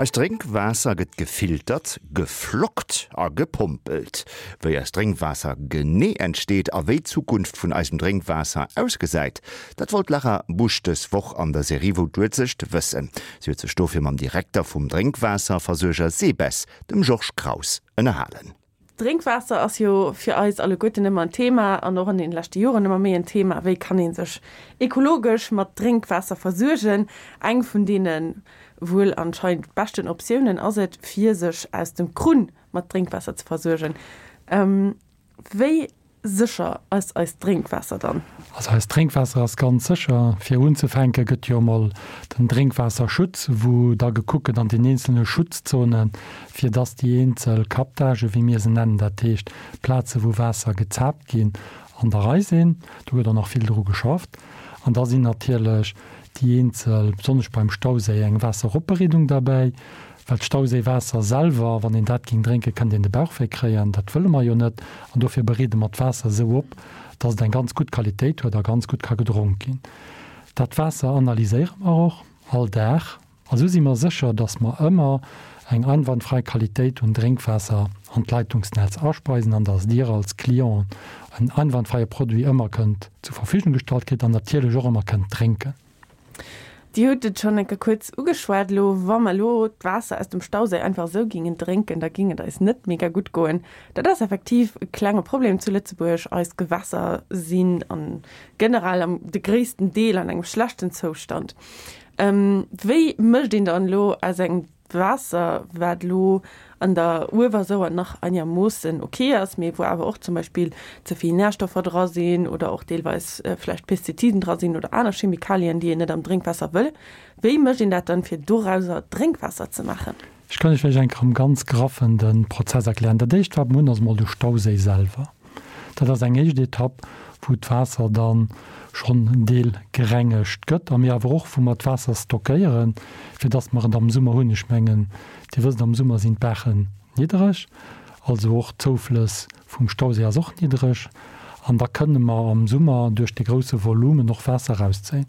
Eist Drénkwaasser gëtt gefiltert, geflockt a gepompelt. Wéi eist Drénkwaasser genee entsteet a wéi d'Zukunft vun eisem Drénkwaasser ausgesäit, dat wollt d'Lara Busch dës Woch an der Serie Wou d'Uelzecht wëssen. Si huet sech dofir mam Direkter vum Drénkwaasserversuerger SEBES, dem Georges Kraus, ënnerhalen. Drénkwaasser ass jo fir eis alleguerten ëmmer en Thema an och an den leschte Joren ëmmer méi en Thema. Wéi kann ee sech ekologesch mat Drénkwaasser versuergen? Eng vun deene wuel anscheinend beschten Optiounen ass et, fir sech aus dem Krunn mat Drénkwaasser ze versuergen. Wéi sécher ass eist Drénkwaasser dann? Also eist Drénkwaasser ass ganz sécher. Fir unzefänke gëtt jo emol den Drénkwaasserschutz, wou da gekuckt gëtt an den eenzelne Schutzzonen, fir dass déi eenzel Captagen, wéi mir se nennen, dat heescht Plaze wou Waasser gezaapt ginn, an der Rei sinn. Do gëtt och nach vill dru geschafft. An da sinn natierlech déi eenzel, besonnesch beim Stauséi, eng Waasseropbereedung derbäi, Well d'Stauséiwaasser selwer, wann een dat géing drénken, kënnt een de Bauchwéi kréien. Dat wëlle mer jo net. An dofir bereede mer d'Waasser esou op, dass et eng ganz gutt Qualitéit huet a ganz gutt ka gedronk ginn. Dat Waasser analyséiere mer och all Dag. A sou si mer sécher, dass mer ëmmer eng einwandfrei Qualitéit un Drénkwaasser an d'Leitungsnetz aspeisen an dass Dir als Clienten en einwandfreie Produit ëmmer kënnt zur Verfügung gestallt kritt an natierlech och ëmmer kënnt drénken. Dir hutt et schonn eng Kéier kuerz ugeschwat elo, Wa mer elo d'Waasser aus dem Stauséi einfach esou gingen drénken, da ging et eis net mega gutt goen. Dat ass effektiv e klenge Problem zu Lëtzebuerg. Eis Gewässer sinn an generell am de gréissten Deel an engem schlechten Zoustand. Wéi mécht een dann elo aus engem Waasser, wat elo an der Uewersauer nach einermoossen ok ass, mee wou awer och zum Beispill ze vill Närstoffer dra sinn oder och deelweis vläicht Pestiziden dra sinn oder aner Chemikalien, déi een net am Drénkwaasser wëll. Wéi mécht een dat dann, fir dorauser Drénkwaasser ze maachen? Ech kann Iech vläicht eng Kéier am ganz Graffen de Prozess erklären. Dat éischt, wat mer hunn, ass emol de Stauséi selwer. Dat ass eng éischt Etapp, wou d'Waasser da schonn en Deel gerengegt gëtt a mir awer och, wou mer d'Waasser stockéieren, fir dass mer et am Summer hunn. Ech mengen, Dir wësst, am Summer sinn d'Baachen niddereg, also och d'Zouflëss vum Stauséi ass och niddereg an da kënne mer am Summer duerch de grousse Volumen och Waasser erauszéien.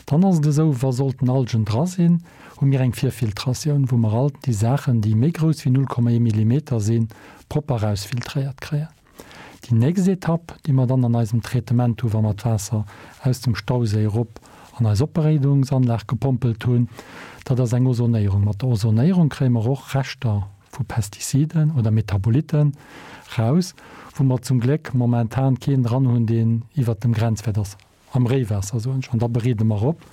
Dann ass et esou, wa sollten Algen dra sinn, hu mir eng Virfiltratioun, wou mer all déi Saachen, déi méi grouss wéi 0,1 Millimeter sinn, propper erausfiltréiert kréien. Déi nächst Etapp, déi mer dann an eisem Traitement hu wa mer d'Waasser aus dem Stauséi erop an eis Opbereedungsanlag gepompelt hunn, dat ass eng Ozonéierung. Mat der Ozonéierung kréie mer och Reschter vu Pestiziden oder Metabolitten raus, wou mer zum Gléck momentan keen dran hunn, deen iwwert dem Grenzwäert ass. Am Réiwaasser, soen ech, an da bereede mer op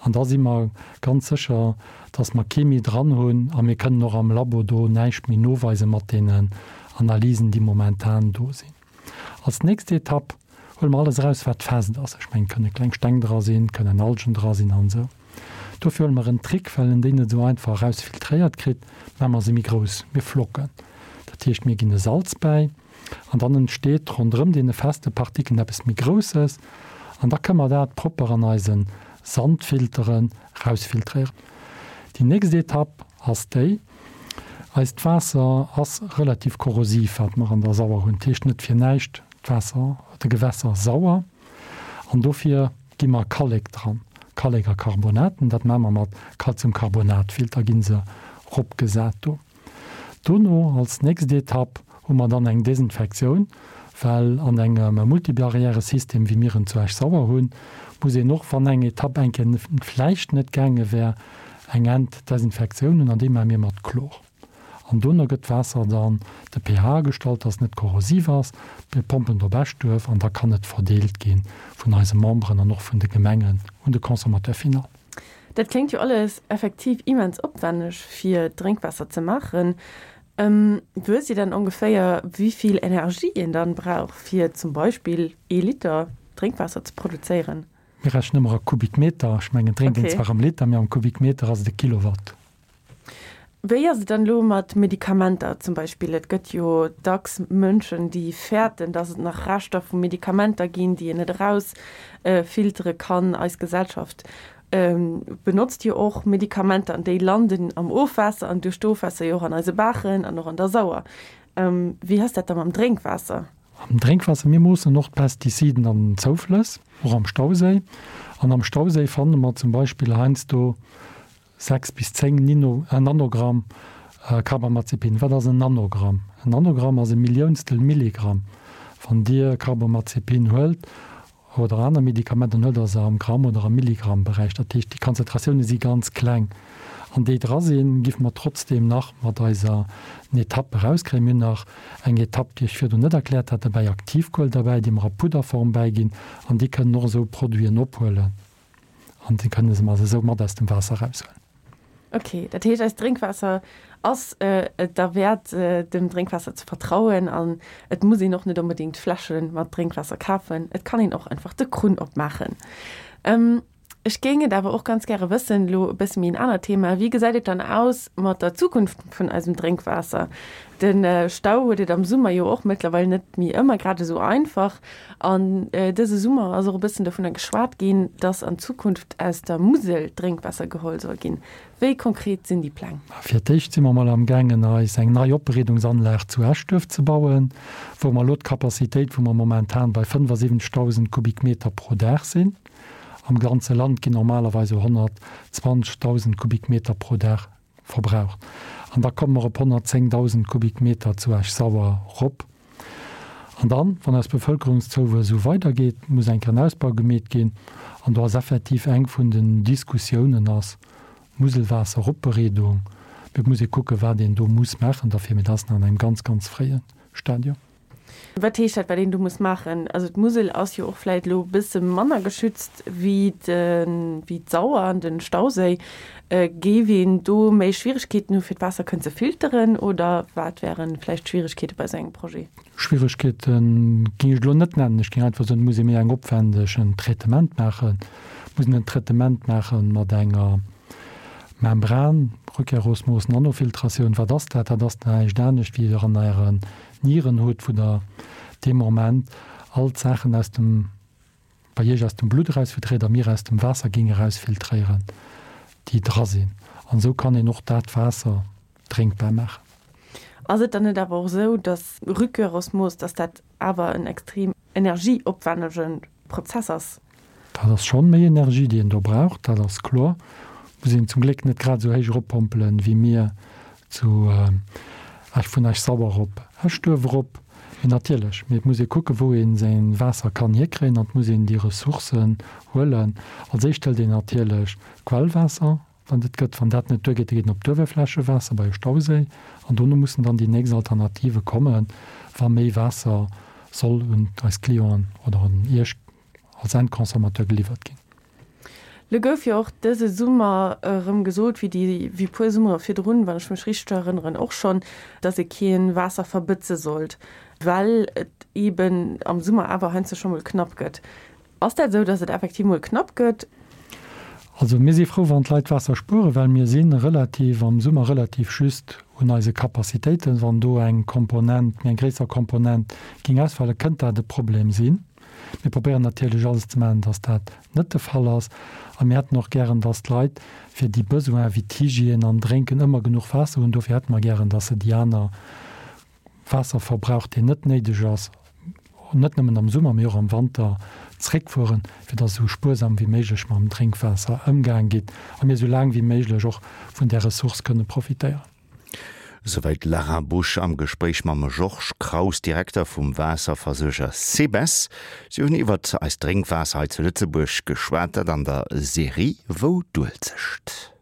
an da si mer ganz sécher, dass mer kee méi dran hunn a mir kënnen och am Labo do näischt méi noweise mat deenen Analysen, déi momentan do sinn. Als nächst Etapp huele mer alles eraus, wat fest ass. Ech mengen, et kënne kleng Steng dra sinn, et kënnen Algen dra sinn an esou. Dofir huele mer en Trick, well en déi net esou einfach erausfiltréiert kritt, maache mer se méi grouss, mir flocken. Dat heescht, mir ginn e Salz bäi. An dann entsteet ronderëm deene feste Partikeln eppes méi Grousses an da kënne mer dat propper an eise Sandfilteren rausfiltréieren. Déi nächst Etapp ass déi, Eist Waasser ass relativ korrosiv, wat mer an der Sauer hunn. Dat heescht net fir näischt d'Waasser, de Gewässer sauer. An dofir gi mer Kallek dran, Kallek a Carbonaten. Dat maache mer mat Calciumcarbonatfilter, gi se ropgesat do. Dono als nächst Etapp hu mer dann eng Desinfektioun, well an engem Multibarrièresystem, wéi mir en zu Esch-Sauer hunn, muss een och, wann eng Etapp eng Kéier vläicht net gaange wär, eng Enddesinfektioun hunn an déi maache mir mat Chlor. An dono gëtt d'Waasser dann de pH agestallt, dass et net korrosiv ass. Mir pompen et op Eschduerf an da kann et verdeelt gi vun eise Memberen an och vun de Gemengen un de Consommateur final. Dat kléngt jo alles effektiv immens opwenneg fir Drénkwaasser ze maachen. Wësst Dir dann ongeféier wéivill Energie een dann brauch fir zum Beispill ee Liter Drénkwaasser ze produzéieren? Mir rechnen ëmmer a Kubikmeter. Ech mengen, drénkt een zwar am Liter, mee am Kubikmeter ass et e Kilowatt. Wéi ass et dann elo mat Medikamenter zum Beispill? Et gëtt jo dacks Mënschen, déi fäerten, datt et nach Reschter vu Medikamenter ginn, déi een net eraus filtere kann. Eis Gesellschaft benotzt jo och Medikamenter an déi landen am Ofwaasser an duerch d'Ofwaasser jo och an eise Baachen an och an der Sauer. Wéi ass dat da mam Drénkwaasser? Am Drénkwaasser, mir moossen och d'Pestiziden an den Zouflëss, och am Stauséi. An am Stauséi fanne mer zum Beispill heiansdo. 6 bis 10 Nino, Nanogramm Carbamazepin. Wat ass en Nanogramm? En Nanogramm ass e Milliounstel Milligramm. Wann Dir Carbamazepin huelt oder aner Medikamenter, dann huelt Der se am Gramm oder am Milligrammberäich. Dat heescht, déi Konzentratioune si ganz kleng. An déi dra sinn, giff mer trotzdeem nach mat eiser Etapp erauskréien. Mir hunn nach eng Etapp, déi ech virdrun net erkläert hat, dobäi, Aktivkuel derbäi, déi mer a Pudderform bäiginn. An déi kënnen och esou Produiten ophuelen. An déi kënne se mer esou mat aus dem Waasser eraushuelen. Ok, dat heescht eist Drénkwaasser ass et derwäert dem Drénkwaasser ze vertrauen an et muss een och net onbedéngt Fläsche mat Drénkwaasser kafen, et kann een och einfach de Krunn opmaachen. Ech géing et awer och ganz gäre wëssen, elo e bësse méi en anert Thema, wéi gesäit et dann aus mat der Zukunft vun eisem Drénkwaasser? De Stau huet et am Summer jo och mëttlerweil net méi ëmmer grad esou einfach. An dëse Summer ass och e bëssen dovunner geschwat ginn, dass an Zukunft aus der Musel Drénkwaasser geholl soll ginn. Wéi konkret sinn déi Pläng? Fir d'éischt si mer mol amgaangen eis eng nei Opbereedungsanlag zu Eschduerf ze bauen, wou mer elo d'Capacitéit, wou mer momentan bei 75.000 Kubikmeter pro Dag sinn, am ganze Land ginn normalerweis esou 120.000 Kubikmeter pro Dag verbraucht. An da komme mer op 110.000 Kubikmeter zu Esch-Sauer rop. An dann, wann eis Bevëlkerungszouwuess esou weidergeet, muss eng Kéier en Ausbau gemeet ginn. An do ass effektiv eng vun den Diskussiounen ass Muselwaasseropbereedung. Mee et muss ee kucken, wat een do muss maachen derfir. Mee dat ass nach an engem ganz, ganz fréie Stadium. Wat heescht dat, wat een do muss maachen? Also d'Musel ass jo och vläit elo e bësse manner geschützt wéi d'Sauer an de Stauséi. Géif een do méi Schwieregkeeten hu fir d'Waasser kënnen ze filteren oder wat wäre vläicht d'Schwieregkeete bei esou engem Projet? Schwieregkeete géing ech elo net nennen. Ech géing einfach soen, et muss ee méi eng opwändegen Traitement maachen. Et muss een en Traitement maache mat enger Membran, Rückkehrosmos, Nanofiltratioun. Wat ass dat? Dat ass näischt anescht wéi Der an Ären Nieren hutt, wou Der dee Moment all d'Saachen aus dem, bei Iech aus dem Blutt erausfiltréiert a mir aus dem Waasser géing erausfiltréieren, déi dra sinn. An esou kann een och dat Waasser drénkbar maachen. Ass et dann net awer och esou, dass Rückkehrosmos, dass dat awer en extrem energieopwännege Prozess ass? Dat ass schonn méi Energie, déi een do brauch, dat ass kloer. Muss een zum Gléck net grad esou héich eroppompelen, wéi mir zu Esch, vun Esch-Sauer op Eschduerf erop. Mee natierlech, mee et muss ee kucken, wou ee säin Waasser kann hierkréien an et muss een déi Ressourcen huelen. Als éischt hëlt een natierlech d'Quellwaasser, wann et gëtt. Wann dat net duergeet, da geet een op d'Uewerflächewaasser bei e Stauséi an dono mussen dann déi nächst Alternative kommen, wa méi Waasser soll un eis Clienten oder un Iech als Endconsommateur geliwwert ginn. Lo gouf jo och dëse Summer erëm gesot, wéi déi, wéi puer Summere virdrun, wann ech mech richteg erënneren, och schonn, dass ee kee Waasser verbëtze sollt, well et eeben am Summer awer heiansdo scho mol knapp gëtt. Ass dat esou, dass et effektiv mol knapp gëtt? Also mir si frou, wann d'Leit Waasser spueren, well mir si relativ am Summer relativ just un eise Capacitéiten. Wann do eng Komponent, méi eng gréisser Komponent géing ausfalen, kënnt dat e Problem sinn. Mir probéieren natierlech alles ze maachen, dass dat net de Fall ass. A mir hätten och gären, dass d'Leit fir déi Besoinen wéi d'Hygiène an Drénken ëmmer genuch Waasser hunn. Dofir hätte mer gären, dass se déi aner Waasserverbrauch, deen net néideg ass, net nëmmen am Summer, mee och am Wanter zréckfueren, fir dass esou spuersam wéi méiglech mam Drénkwaasser ëmgaang gitt a mir esou laang wéi méiglech och vun där Ressource kënne profitéieren. Souwäit d'Lara Busch am Gespréich mam Georges Kraus, Direkter vum Waasserversuerger SEBES. Si hunn iwwert eist Drénkwaasser hei zu Lëtzebuerg geschwat, dat an der Serie Wou d'Uelzecht.